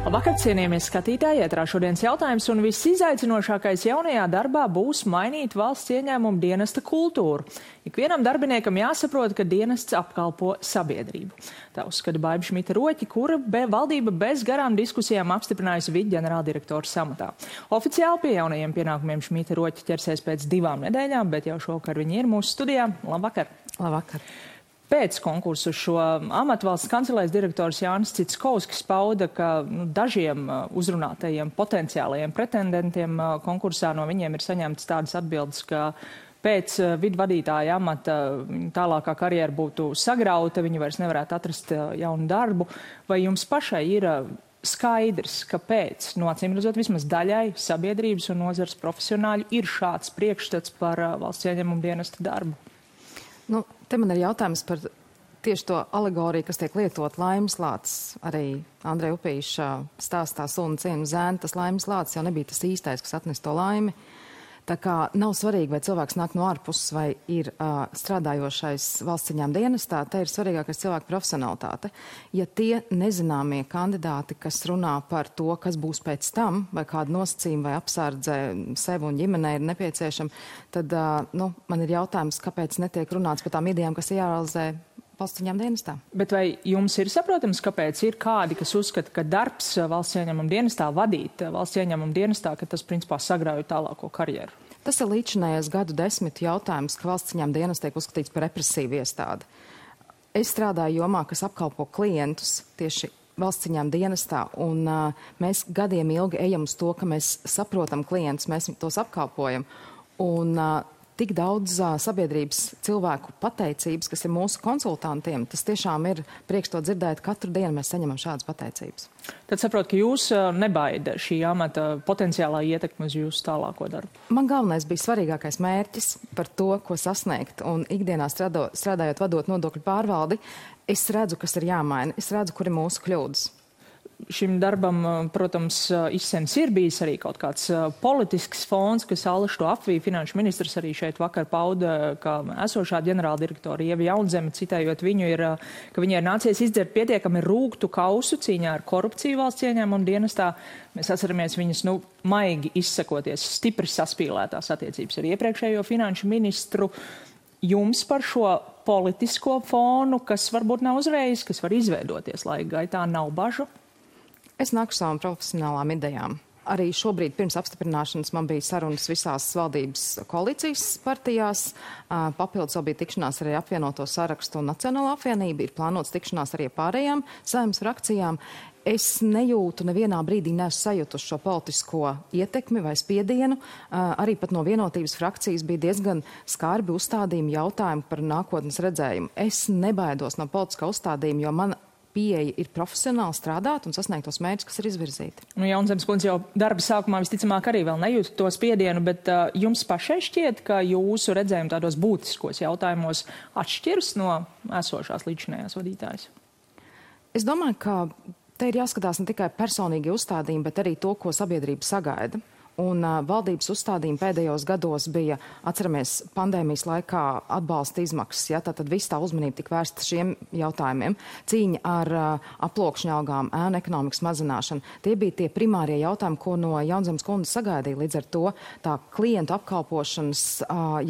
Labvakar, cienījamies skatītāji, ētrā šodienas jautājums un viss izaicinošākais jaunajā darbā būs mainīt valsts ieņēmumu dienesta kultūru. Ikvienam darbiniekam jāsaprot, ka dienests apkalpo sabiedrību. Tā uzskata Baiba Šmita-Roķe, kura valdība bez garām diskusijām apstiprinājusi viceģenerāldirektora samatā. Oficiāli pie jaunajiem pienākumiem Šmita-Roķe ķersies pēc 2 nedēļām, bet jau šovakar viņi ir mūsu studijā. Labvakar! Labvakar! Pēc konkursu šo amatu valsts kancelēs direktors Jānis Citskovskis pauda, ka dažiem uzrunātajiem potenciālajiem pretendentiem konkursā no viņiem ir saņemtas tādas atbildes, ka pēc vidvadītāja amata tālākā karjera būtu sagrauta, viņi vairs nevarētu atrast jaunu darbu. Vai jums pašai ir skaidrs, kāpēc, no acīm redzot, vismaz daļai sabiedrības un nozars profesionāļu ir šāds priekšstats par valsts ieņēmumu dienesta darbu? Te man ir jautājums par tieši to alegoriju, kas tiek lietot laimes lācis. Arī Andreja Upīša stāstā Sunu cienu zēnu, tas laimes lācis jau nebija tas īstais, kas atnes to laimi. Tā kā nav svarīgi, vai cilvēks nāk no ārpuses vai ir strādājošais valsts ieņēmuma dienestā, te ir svarīgākais cilvēka profesionalitāte. Ja tie nezināmie kandidāti, kas runā par to, kas būs pēc tam, vai kādu nosacījumu vai apsardze sev un ģimenei ir nepieciešama, tad man ir jautājums, kāpēc netiek runāts par tām idejām, kas ir jārealizē valsts ieņēmuma dienestā. Bet vai jums ir saprotams, kāpēc ir kādi, kas uzskata, ka darbs valsts ieņēmuma dienestā, vadīt valsts ieņēmuma dienestā, ka tas principā sagrauj tālāko karjeru? Tas ir līdzinājais gadu desmitu jautājums, ka valsts ieņēmuma dienests tiek uzskatīts par represīvu iestādi. Es strādāju jomā, kas apkalpo klientus tieši valsts ieņēmuma dienestā, un mēs gadiem ilgi ejam uz to, ka mēs saprotam klientus, mēs tos apkalpojam. Un tik daudz sabiedrības cilvēku pateicības, kas ir mūsu konsultantiem, tas tiešām ir prieks to dzirdēt. Katru dienu mēs saņemam šādas pateicības. Tad saprot, ka jūs nebaida šī amata potenciālā ietekme uz jūsu tālāko darbu? Man galvenais bija svarīgākais mērķis par to, ko sasniegt. Un ikdienā strādājot vadot nodokļu pārvaldi, es redzu, kas ir jāmaina. Es redzu, kur ir mūsu kļūdas. Šim darbam, protams, izsens ir bijis arī kaut kāds politisks fons, kas Allaž to apvīja. Finanšu ministrs arī šeit vakar pauda, ka esošā ģenerāldirektora Ieva Jaunzeme, citējot viņu, ka viņai ir nācies izdzert pietiekami rūgtu kausu cīņā ar korupciju valsts ieņēmuma dienestā. Mēs atceramies viņas, maigi izsakoties, stipri saspīlētās attiecības ar iepriekšējo finanšu ministru. Jums par šo politisko fonu, kas varbūt nav uzreiz, kas var izveidoties laika gaitā, nav bažu? Es nāku savām profesionālām idejām. Arī šobrīd pirms apstiprināšanas man bija sarunas visās valdības koalīcijas partijās. Papildus vēl bija tikšanās arī apvienoto sarakstu un Nacionālo apvienību. Ir plānots tikšanās arī pārējām saimnes frakcijām. Es nejūtu nevienā brīdī sajutuši šo politisko ietekmi vai spiedienu. Arī pat no vienotības frakcijas bija diezgan skarbi uzstādījumi jautājumi par nākotnes redzējumu. Es nebaidos no politiskā uzstādījuma, jo man pieeja ir profesionāli strādāt un sasniegt tos mērķus, kas ir izvirzīti. Jaunzemes kundze jau darba sākumā visticamāk arī vēl nejūt to spiedienu, bet jums pašai šķiet, ka jūsu redzējumi tādos būtiskos jautājumos atšķiras no esošās līdzinējās vadītājas? Es domāju, ka te ir jāskatās ne tikai personīgi uzstādījumi, bet arī to, ko sabiedrība sagaida. Un valdības uzstādījumi pēdējos gados bija, atceramies, pandēmijas laikā atbalsta izmaksas. Ja? Tātad viss tā uzmanība tika vērsta šiem jautājumiem. Cīņa ar aploksņa algām, ēnu ekonomikas mazināšanu. Tie bija tie primārie jautājumi, ko no Jaunzemes kundzes sagaidīja. Līdz ar to tā klientu apkalpošanas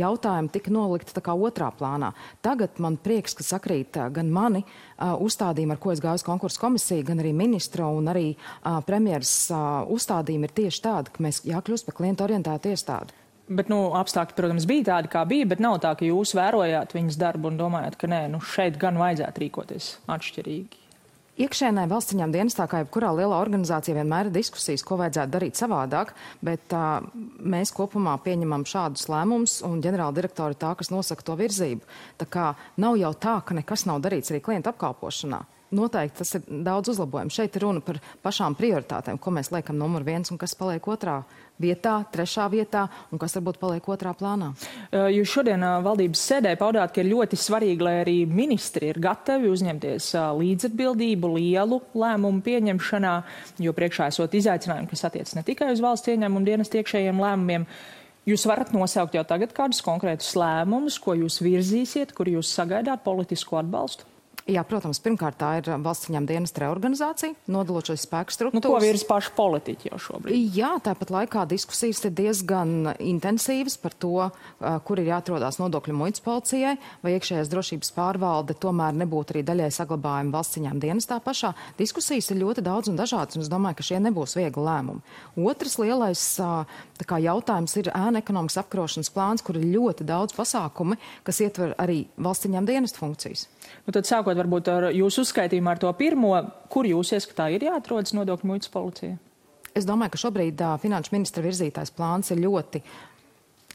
jautājumi tika nolikti tā kā otrā plānā. Tagad man prieks, ka sakrīt gan mani uzstādījumi, ar ko es gāju uz konkursu komisiju, gan arī ministra un arī premjeras uzstādījumi ir tieši tādi, ka mēs jākļūst par klientu orientētu iestādi. Bet, apstākļi, protams, bija tādi, kā bija, bet nav tā, ka jūs vērojāt viņas darbu un domājat, ka nē, šeit gan vajadzētu rīkoties atšķirīgi. Iekšēnē valsts ieņēmuma dienestā, kā jebkurā lielā organizācijā, vienmēr ir diskusijas, ko vajadzētu darīt savādāk, bet mēs kopumā pieņemam šādus lēmumus, un ģenerāldirektori ir tā, kas nosaka to virzību. Tā kā nav jau tā, ka nekas nav darīts arī klientu apkalpošanā. Noteikti tas ir daudz uzlabojumu. Šeit ir runa par pašām prioritātēm, ko mēs liekam numur 1 un kas paliek 2. vietā, 3. vietā un kas varbūt paliek 2. plānā. Jūs šodien valdības sēdē paudāt, ka ir ļoti svarīgi, lai arī ministri ir gatavi uzņemties līdzatbildību lielu lēmumu pieņemšanā, jo priekšā esot izaicinājumi, kas attiec ne tikai uz valsts ieņēmumu dienestu iekšējiem lēmumiem. Jūs varat nosaukt jau tagad kādus konkrētus lēmumus, ko jūs virzīsiet, kur jūs sagaidāt politisku atbalstu? Jā, protams, pirmkārt tā ir valsts ieņēmuma dienesta reorganizācija, nodalot šos spēku struktūras. Ko virs paši politiķi jau šobrīd? Jā, tāpat laikā diskusijas ir diezgan intensīvas par to, kur ir jāatrodās nodokļu muitas policijai, vai iekšējās drošības pārvalde tomēr nebūtu arī daļai saglabājuma valsts ieņēmuma dienestā pašā. Diskusijas ir ļoti daudz un dažādas, un es domāju, ka šie nebūs viegli lēmumi. Otrs lielais jautājums ir ēnu ekonomikas apkarošanas plāns, kur ir ļoti daudz pasākumi, kas ietver arī valsts ieņēmuma dienesta funkcijas. Nu, tad sākot varbūt ar jūsu uzskaitījumu ar to pirmo, kur jūs ieskatā ir jāatrodas nodokļu muitas policija? Es domāju, ka šobrīd finanšu ministra virzītais plāns ir ļoti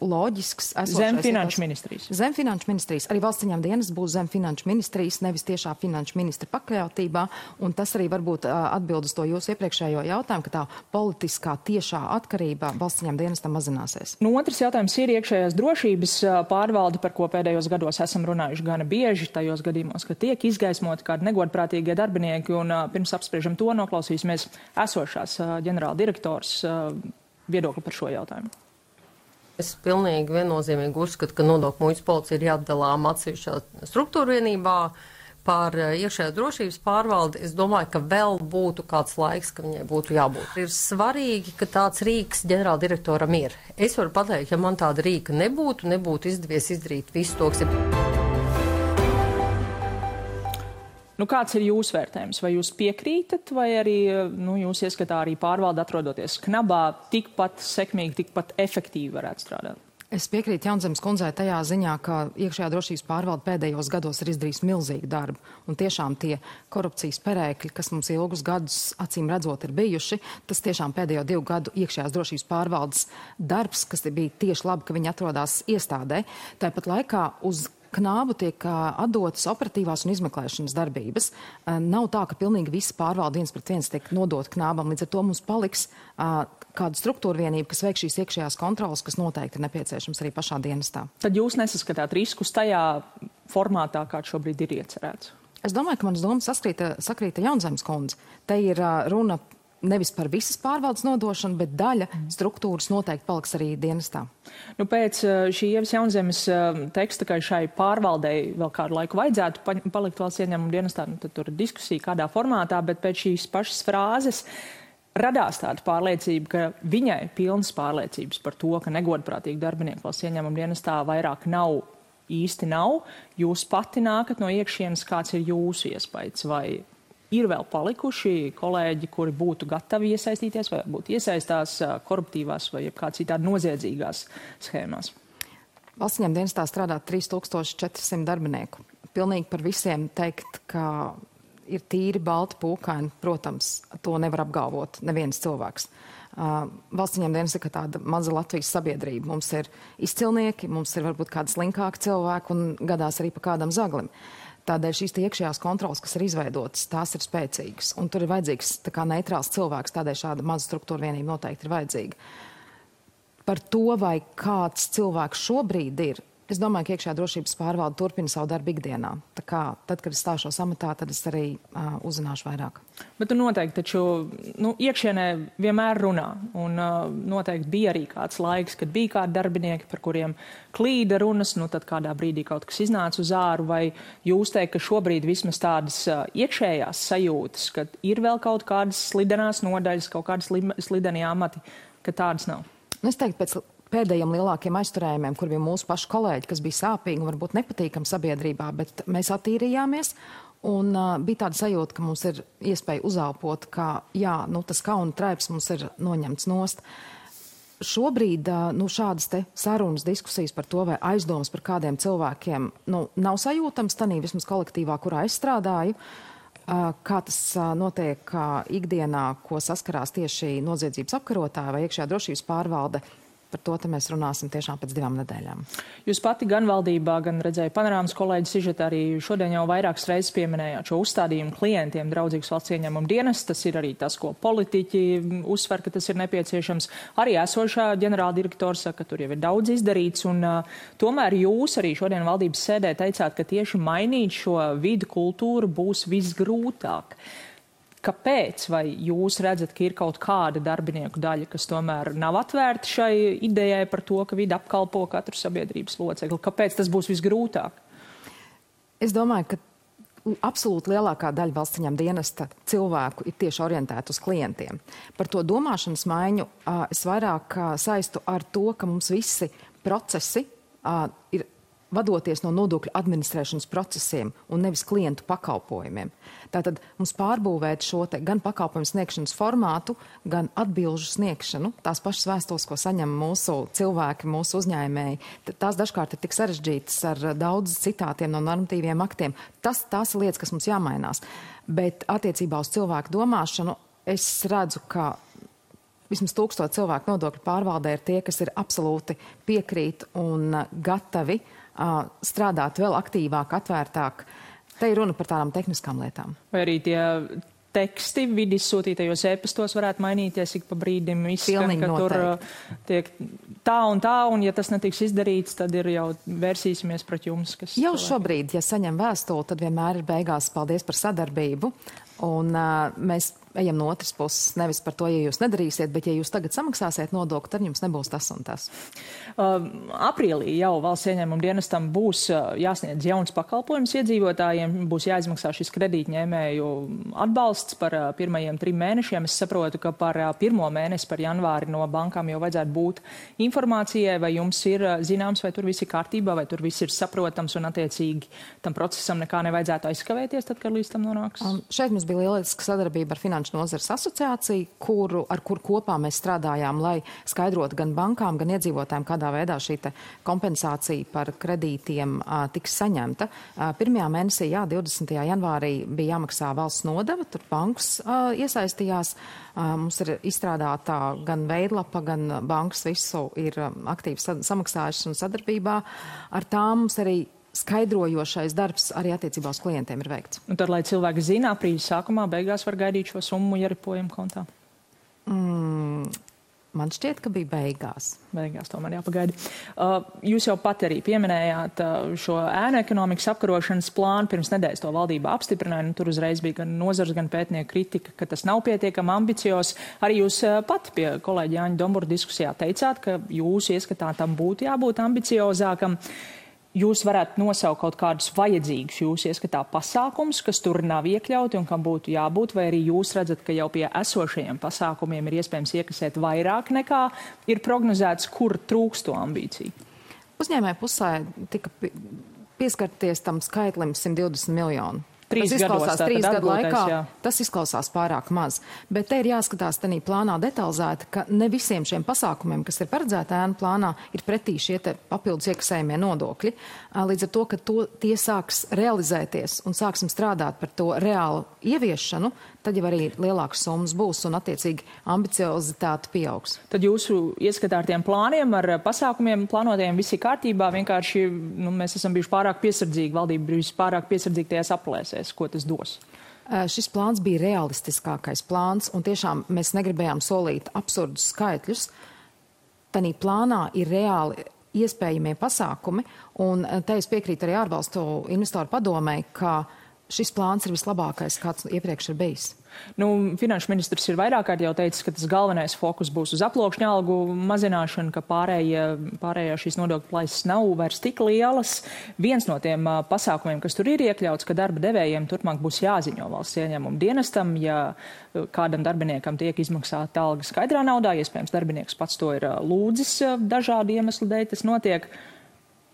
loģisks. Zem finanšu ministrijas. Zem finanšu ministrijas. Arī valsts ieņēmuma dienas būs zem finanšu ministrijas, nevis tiešā finanšu ministra pakļautībā. Un tas arī varbūt atbild uz to jūsu iepriekšējo jautājumu, ka tā politiskā tiešā atkarība valsts ieņēmuma dienestam mazināsies. Nu, otrs jautājums ir iekšējās drošības pārvalde, par ko pēdējos gados esam runājuši gana bieži, tajos gadījumos, ka tiek izgaismoti kādi negodprātīgie darbinieki. Un pirms apspriežam to, noklausīsimies esošās ģenerāla direktors viedokli par šo jautājumu. Es pilnīgi viennozīmīgi uzskatu, ka nodokļu muitas policija ir jāatdalām atsevišķā struktūra vienībā par iekšējās drošības pārvaldi. Es domāju, ka vēl būtu kāds laiks, ka viņai būtu jābūt. Ir svarīgi, ka tāds rīks ģenerāldirektoram ir. Es varu pateikt, ja man tāda rīka nebūtu izdevies izdarīt visu to, kas ir. Nu, kāds ir jūsu vērtējums? Vai jūs piekrītat, vai arī jūs ieskatā arī pārvalde atrodoties knabā tikpat sekmīgi, tikpat efektīvi varētu strādāt? Es piekrītu Jaunzemes kundzei tajā ziņā, ka iekšējā drošības pārvalde pēdējos gados ir izdarījis milzīgu darbu. Un tiešām tie korupcijas perēkļi, kas mums ilgus gadus acīm redzot ir bijuši, tas tiešām pēdējo 2 gadu iekšējās drošības pārvaldes darbs, kas bija tieši labi, ka viņi atrodās iestādē. Tāpat laikā uz knābu tiek atdotas operatīvās un izmeklēšanas darbības. Nav tā, ka pilnīgi visa pārvalde 1:1 tiek nodot knābam. Līdz ar to mums paliks kāda struktūra vienība, kas veik šīs iekšējās kontrolas, kas noteikti ir nepieciešams arī pašā dienestā. Tad jūs nesaskatāt riskus tajā formātā, kāds šobrīd ir iecerēts? Es domāju, ka manas domas sakrīta Jaunzemes kundze. Te ir runa nevis par visas pārvaldes nodošanu, bet daļa struktūras noteikti paliks arī dienestā. Nu, pēc šī Ievas Jaunzemes teksta, ka šai pārvaldei vēl kādu laiku vajadzētu palikt valsts ieņēmuma dienestā, tad tur ir diskusija kādā formātā, bet pēc šīs pašas frāzes radās tāda pārliecība, ka viņai pilnas pārliecības par to, ka negodprātīgi darbinieki valsts ieņēmuma dienestā vairāk īsti nav. Jūs pati nākat no iekšienes, kāds ir jūsu iespējas, vai ir vēl palikuši kolēģi, kuri būtu gatavi iesaistīties vai būtu iesaistās koruptīvās vai kā citādi noziedzīgās schēmās? Valsts ieņēmuma dienestā strādā 3400 darbinieku. Pilnīgi par visiem teikt, ka ir tīri balti pūkaini, protams, to nevar apgalvot neviens cilvēks. Valsts ieņēmuma dienesta ir tāda maza Latvijas sabiedrība. Mums ir izcilnieki, mums ir varbūt kādi slinkāki cilvēki un gadās arī pa kādam zaglim. Tādēļ šīs iekšējās kontrolas, kas ir izveidotas, tās ir spēcīgas. Un tur ir vajadzīgs tā kā neitrāls cilvēks, tādēļ šāda maza struktūra vienība noteikti ir vajadzīga. Par to, vai kāds cilvēks šobrīd ir, es domāju, ka iekšējā drošības pārvalde turpina savu darbu ikdienā. Tā kā tad, kad es stāšos amatā, tad es arī uzzināšu vairāk. Bet tu noteikti taču iekšienē vienmēr runā. Un noteikti bija arī kāds laiks, kad bija kādi darbinieki, par kuriem klīda runas, tad kādā brīdī kaut kas iznāca uz āru. Vai jūs teikt, ka šobrīd vismaz tādas iekšējās sajūtas, ka ir vēl kaut kādas slidenās nodaļas, kaut kādas slidenie amati, ka tādas nav? Es teiktu, pēc pēdējiem lielākiem aizturējumiem, kur bija mūsu paši kolēģi, kas bija sāpīgi un varbūt nepatīkami sabiedrībā, bet mēs attīrījāmies. Un bija tāda sajūta, ka mums ir iespēja uzelpot, ka tas kauna traips mums ir noņemts nost. Šobrīd šādas te sarunas, diskusijas par to vai aizdomas par kādiem cilvēkiem nav sajūtams tanī vismaz kolektīvā, kurā es strādāju. Kā tas notiek ikdienā, ko saskarās tieši noziedzības apkarotāji vai iekšējā drošības pārvalde. Par to mēs runāsim tiešām pēc 2 nedēļām. Jūs pati gan valdībā, gan redzēju panorāmas kolēģi sižetā arī šodien jau vairākas reizes pieminējāt šo uzstādījumu klientiem draudzīgas valsts ieņēmuma dienas. Tas ir arī tas, ko politiķi uzsver, ka tas ir nepieciešams. Arī esošā ģenerāla direktora saka, ka tur jau ir daudz izdarīts. Un tomēr jūs arī šodien valdības sēdē teicāt, ka tieši mainīt šo vidu kultūru būs visgrūtāk. Kāpēc? Vai jūs redzat, ka ir kaut kāda darbinieku daļa, kas tomēr nav atvērta šai idejai par to, ka vidi apkalpo katru sabiedrības locekli? Kāpēc tas būs visgrūtāk? Es domāju, ka absolūti lielākā daļa valsts ieņēmuma dienesta cilvēku ir tieši orientēta uz klientiem. Par to domāšanas maiņu es vairāk saistu ar to, ka mums visi procesi ir vadoties no nodokļu administrēšanas procesiem un nevis klientu pakalpojumiem. Tātad mums pārbūvēt šo te gan pakalpojumu sniegšanas formātu, gan atbilžu sniegšanu, tās pašas vēstules, ko saņem mūsu cilvēki, mūsu uzņēmēji, tās dažkārt ir tik sarežģītas ar daudz citātiem no normatīviem aktiem. Tās ir lietas, kas mums jāmainās. Bet attiecībā uz cilvēku domāšanu es redzu, ka vismaz 1000 cilvēku nodokļu pārvaldē ir tie, kas ir absolūti piekrīt un gatavi strādāt vēl aktīvāk, atvērtāk. Te ir runa par tādām tehniskām lietām. Vai arī tie teksti vidi izsūtītajos e-pastos varētu mainīties ik pa brīdim izskan, ka tur tiek tā, un ja tas netiks izdarīts, tad ir jau vērsīsimies pret jums. Kas jau šobrīd, ja saņem vēstuli, tad vienmēr ir beigās paldies par sadarbību. Un mēs ejam no otras puses, nevis par to, ja jūs nedarīsiet, bet ja jūs tagad samaksāsiet nodokli, tad jums nebūs tas un tas. Aprīlī jau valsts ieņēmuma dienestam būs jāsniedz jauns pakalpojums iedzīvotājiem, būs jāizmaksā šis kredītņēmēju atbalsts par pirmajiem 3 mēnešiem. Es saprotu, ka par 1. mēnesi, par janvāri no bankām jau vajadzētu būt informācijai, vai jums ir zināms, vai tur viss ir kārtībā, vai tur viss ir saprotams un attiecīgi tam procesam nekā nevajadzētu aizkavēties, tad, kad līdz tam nonāks. Šeit mums bija lieliska sadarbība ar Finanšu nozares asociāciju, ar kur kopā mēs strādājām, lai skaidrotu gan bankām, gan iedzīvotājiem, kādā veidā šī kompensācija par kredītiem tiks saņemta. 1. mēnesī, 20. janvārī bija jāmaksā valsts nodeva, tur bankas iesaistījās. Mums ir izstrādātā gan veidlapa, gan bankas visu ir aktīvi samaksājušas un sadarbībā. Ar tām mums arī skaidrojošais darbs arī attiecībā uz klientiem ir veikts. Un tad, lai cilvēki zina, aprīļa sākumā, beigās var gaidīt šo summu ieripojumu kontā? Man šķiet, ka bija beigās. Beigās tomēr jāpagaida. Jūs jau pat arī pieminējāt šo ēnu ekonomikas apkarošanas plānu. Pirms nedēļas to valdība apstiprināja. Tur uzreiz bija gan nozars, gan pētnieku kritika, ka tas nav pietiekami ambiciozs. Arī jūs pat pie kolēģa Jāņa Dombura diskusijā teicāt, ka jūsu ieskatā tam būtu jābūt ambiciozākam. Jūs varētu nosaukt kaut kādus vajadzīgus jūsu ieskatā pasākumus, kas tur nav iekļauti un kam būtu jābūt, vai arī jūs redzat, ka jau pie esošajiem pasākumiem ir iespējams iekasēt vairāk nekā ir prognozēts, kur trūkst to ambīciju? Uzņēmēju pusē tika pieskarties tam skaitlim 120 miljonu. 3 gadu laikā, tas izklausās pārāk maz. Bet te ir jāskatās tenī plānā detalizēti, ka ne visiem šiem pasākumiem, kas ir paredzēti ēnu plānā, ir pretī šie te papildus iekasējumie nodokļi. Līdz ar to, ka tie sāks realizēties un sāksim strādāt par to reālu ieviešanu, tad jau arī lielākas summas būs un attiecīgi ambiciozitāte pieaugs. Tad jūsu ieskatā ar tiem plāniem, ar pasākumiem plānotiem visi kārtībā, vienkārši mēs esam bijuši pārāk piesardzīgi, valdība bijusi pārāk piesardzīgi tajās aplēsēs, ko tas dos. Šis plāns bija realistiskākais plāns un tiešām mēs negribējām solīt absurdus skaitļus. Tanī plānā ir reāli iespējamie pasākumi un te es piekrītu arī ārvalstu investoru padomē, ka šis plāns ir vislabākais, kāds iepriekš ir bijis. Finanšu ministrs ir vairāk kārt jau teicis, ka tas galvenais fokus būs uz aploksņa algu mazināšanu, ka pārējā šīs nodokļu plaisas nav vairs tik lielas. Viens no tiem pasākumiem, kas tur ir iekļauts, ka darba devējiem turpmāk būs jāziņo valsts ieņēmuma dienestam, ja kādam darbiniekam tiek izmaksāta alga skaidrā naudā, iespējams darbinieks pats to ir lūdzis dažādu iemeslu dēļ, tas notiek.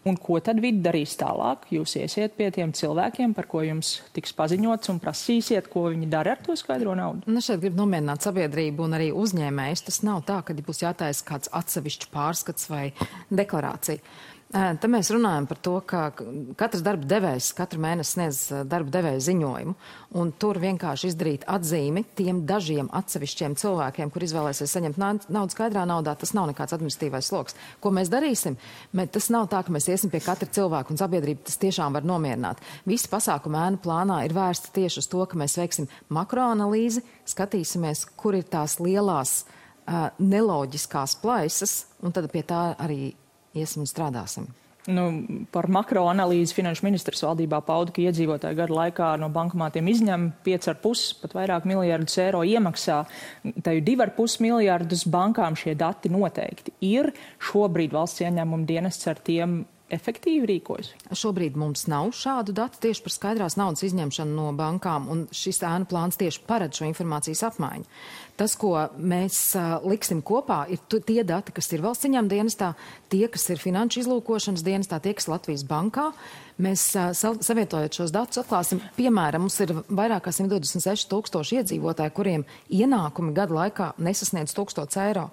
Un ko tad vidi darīs tālāk? Jūs iesiet pie tiem cilvēkiem, par ko jums tiks paziņots un prasīsiet, ko viņi dara ar to skaidro naudu? Šeit grib nomierināt sabiedrību un arī uzņēmējus. Tas nav tā, ka būs jātaisa kāds atsevišķs pārskats vai deklarācija. Te mēs runājam par to, ka katrs darba devējs katru mēnesi sniedz darba devēja ziņojumu, un tur vienkārši izdarīt atzīmi tiem dažiem atsevišķiem cilvēkiem, kur izvēlēsies saņemt naudu skaidrā naudā, tas nav nekāds administratīvais sloks. Ko mēs darīsim? Tas nav tā, ka mēs iesim pie katra cilvēka, un sabiedrība tas tiešām var nomierināt. Visi pasākumi ēnu plānā ir vērsti tieši uz to, ka mēs veiksim makroanalīzi, skatīsimies, kur ir tās lielās neloģiskās plaisas, un tad pie tā arī iesim un strādāsim. Par makroanalīzi finanšu ministrs valdībā pauda, ka iedzīvotāji gadu laikā no bankomātiem izņem 5,5, pat vairāk miljardus eiro iemaksā. Teju 2,5 miljardus bankām šie dati noteikti ir. Šobrīd valsts ieņēmuma dienests ar tiem efektīvi rīkojas? Šobrīd mums nav šādu datu tieši par skaidrās naudas izņemšanu no bankām, un šis ēnu plāns tieši paredz šo informācijas apmaiņu. Tas, ko mēs liksim kopā, ir tie dati, kas ir valsts ieņēmuma dienestā, tie, kas ir finanšu izlūkošanas dienestā, tie, kas Latvijas bankā. Mēs savietojot šos datus atklāsim, piemēram, mums ir vairāk kā 126 000 iedzīvotāji, kuriem ienākumi gadu laikā nesasniedz 1000 eiro.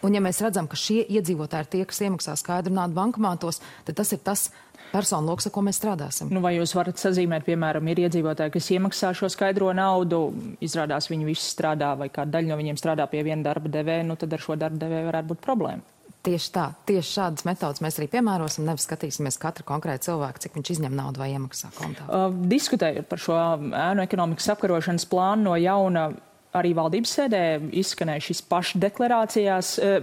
Un ja mēs redzam, ka šie iedzīvotāji ir tie, kas iemaksā skaidru naudu bankomātos, tad tas ir tas personu loks, ar ko mēs strādāsim. Nu, vai jūs varat sazīmēt, piemēram, ir iedzīvotāji, kas iemaksā šo skaidro naudu, izrādās viņi visi strādā vai kāda daļa no viņiem strādā pie viena darba devēja, nu tad ar šo darba devēju varētu būt problēma. Tieši tā, tieši šādas metodas mēs arī piemērosim, nevis skatīsimies katru konkrētu cilvēku, cik viņš izņem naudu vai iemaksā kontā. Diskutējot par šo ēnu ekonomikas apkarošanas plānu no jauna, arī valdības sēdē izskanēja šis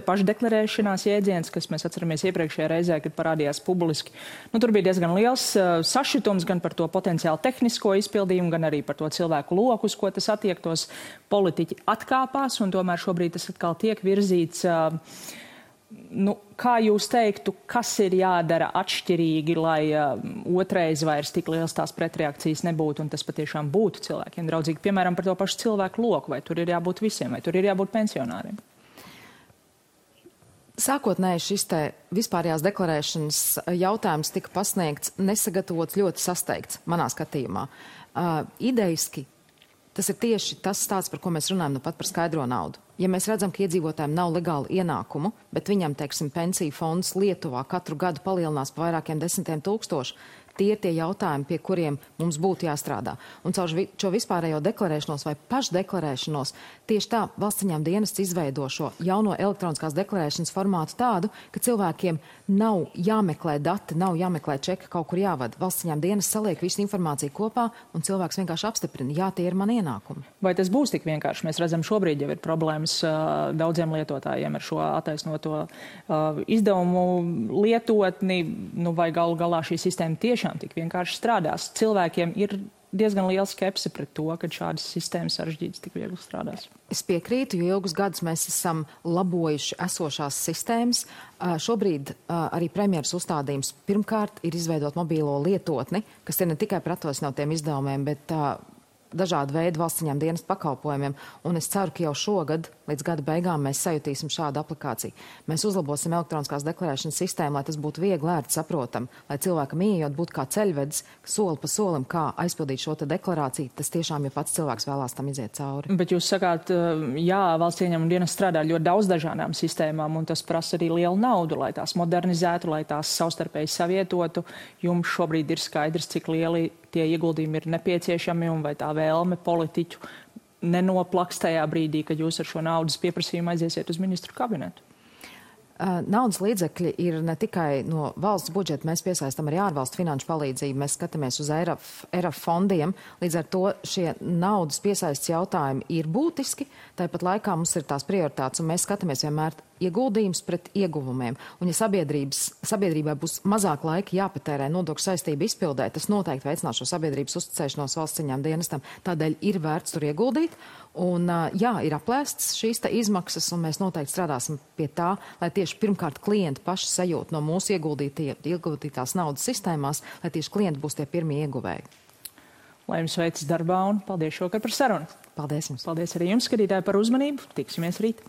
pašdeklarēšanās jēdziens, kas mēs atceramies iepriekšējā reizē, kad parādījās publiski. Nu, tur bija diezgan liels sašutums gan par to potenciāli tehnisko izpildījumu, gan arī par to cilvēku loku, uz ko tas attiektos. Politiķi atkāpās, un tomēr šobrīd tas atkal tiek virzīts. Nu, kā jūs teiktu, kas ir jādara atšķirīgi, lai otrais vairs tik liels tās pretreakcijas nebūtu un tas patiešām būtu cilvēkiem draudzīgi? Piemēram, par to pašu cilvēku loku, vai tur ir jābūt visiem, vai tur ir jābūt pensionāriem? Sākotnēji šis te vispārējās deklarēšanas jautājums tika pasniegts nesagatavots, ļoti sasteigts, manā skatījumā. Idejiski tas ir tieši tas stāsts, par ko mēs runājam nu pat par skaidro naudu. Ja mēs redzam, ka iedzīvotājiem nav legāli ienākumu, bet viņam, teiksim, pensiju fonds Lietuvā katru gadu palielinās pa vairākiem 10 000, tie ir tie jautājumi, pie kuriem mums būtu jāstrādā. Un caur šo vispārējo deklarēšanos vai pašdeklarēšanos tieši tā valsts ieņēmuma dienests izveido šo jauno elektroniskās deklarēšanas formātu tādu, ka cilvēkiem nav jāmeklē dati, nav jāmeklē čeki, kaut kur jāvada. Valsts ieņēmuma dienests saliek visu informāciju kopā un cilvēks vienkārši apstiprina, jā, tie ir mani ienākumi. Vai tas būs tik vienkārši? Mēs redzam, šobrīd jau ir problēmas daudziem lietotājiem ar šo attaisnoto izdevumu lietotni, nu vai galu galā šī sistēma tiešām tik vienkārši strādās. Cilvēkiem ir diezgan liela skepse pret to, ka šādas sistēmas sarežģītas tik viegli strādās. Es piekrītu, jo ilgus gadus mēs esam labojuši esošās sistēmas. Šobrīd arī premjeras uzstādījums pirmkārt ir izveidot mobīlo lietotni, kas ir ne tikai par atvasinotiem izdevumiem, bet dažādu veidu valsts ieņēmuma dienesta pakalpojumiem, un es ceru, ka jau šogad, līdz gada beigām, mēs sajutīsim šādu aplikāciju. Mēs uzlabosim elektroniskās deklarēšanas sistēmu, lai tas būtu viegli, ērti saprotam, lai cilvēkam ieejot būtu kā ceļvedis, soli pa solim, kā aizpildīt šo te deklarāciju, tas tiešām, ja pats cilvēks vēlās tam iziet cauri. Bet jūs sakāt, jā, valsts ieņēmuma dienests strādā ļoti daudz dažādām sistēmām, un tas prasa arī lielu naudu, lai tās modernizētu, lai tās savstarpēji savietotu. Jums šobrīd ir skaidrs, cik lieli tie ieguldījumi ir nepieciešami un vai tā vēlme politiķu nenoplaks tajā brīdī, kad jūs ar šo naudas pieprasījumu aiziesiet uz ministru kabinetu? Naudas līdzekļi ir ne tikai no valsts budžeta, mēs piesaistam arī ārvalstu finanšu palīdzību, mēs skatāmies uz ERAF fondiem, līdz ar to šie naudas piesaistes jautājumi ir būtiski, tāpat laikā mums ir tās prioritātes, un mēs skatāmies vienmēr ieguldījums pret ieguvumiem. Un ja sabiedrībai būs mazāk laika jāpatērē nodokļu saistību izpildē, tas noteikti veicinās šo sabiedrības uzticēšanos valsts ieņēmuma dienestam. Tādēļ ir vērts tur ieguldīt. Un jā, ir aplēstas šīs izmaksas, un mēs noteikti strādāsim pie tā, lai tieši pirmkārt klienti paši sajūt no mūsu ieguldītās naudas sistēmās, lai tieši klienti būs tie pirmie ieguvēji. Lai jums veicas darbā un paldies šokar par sarunu. Paldies jums. Paldies arī jums, skatītāji, par uzmanību. Tiksimies rīt.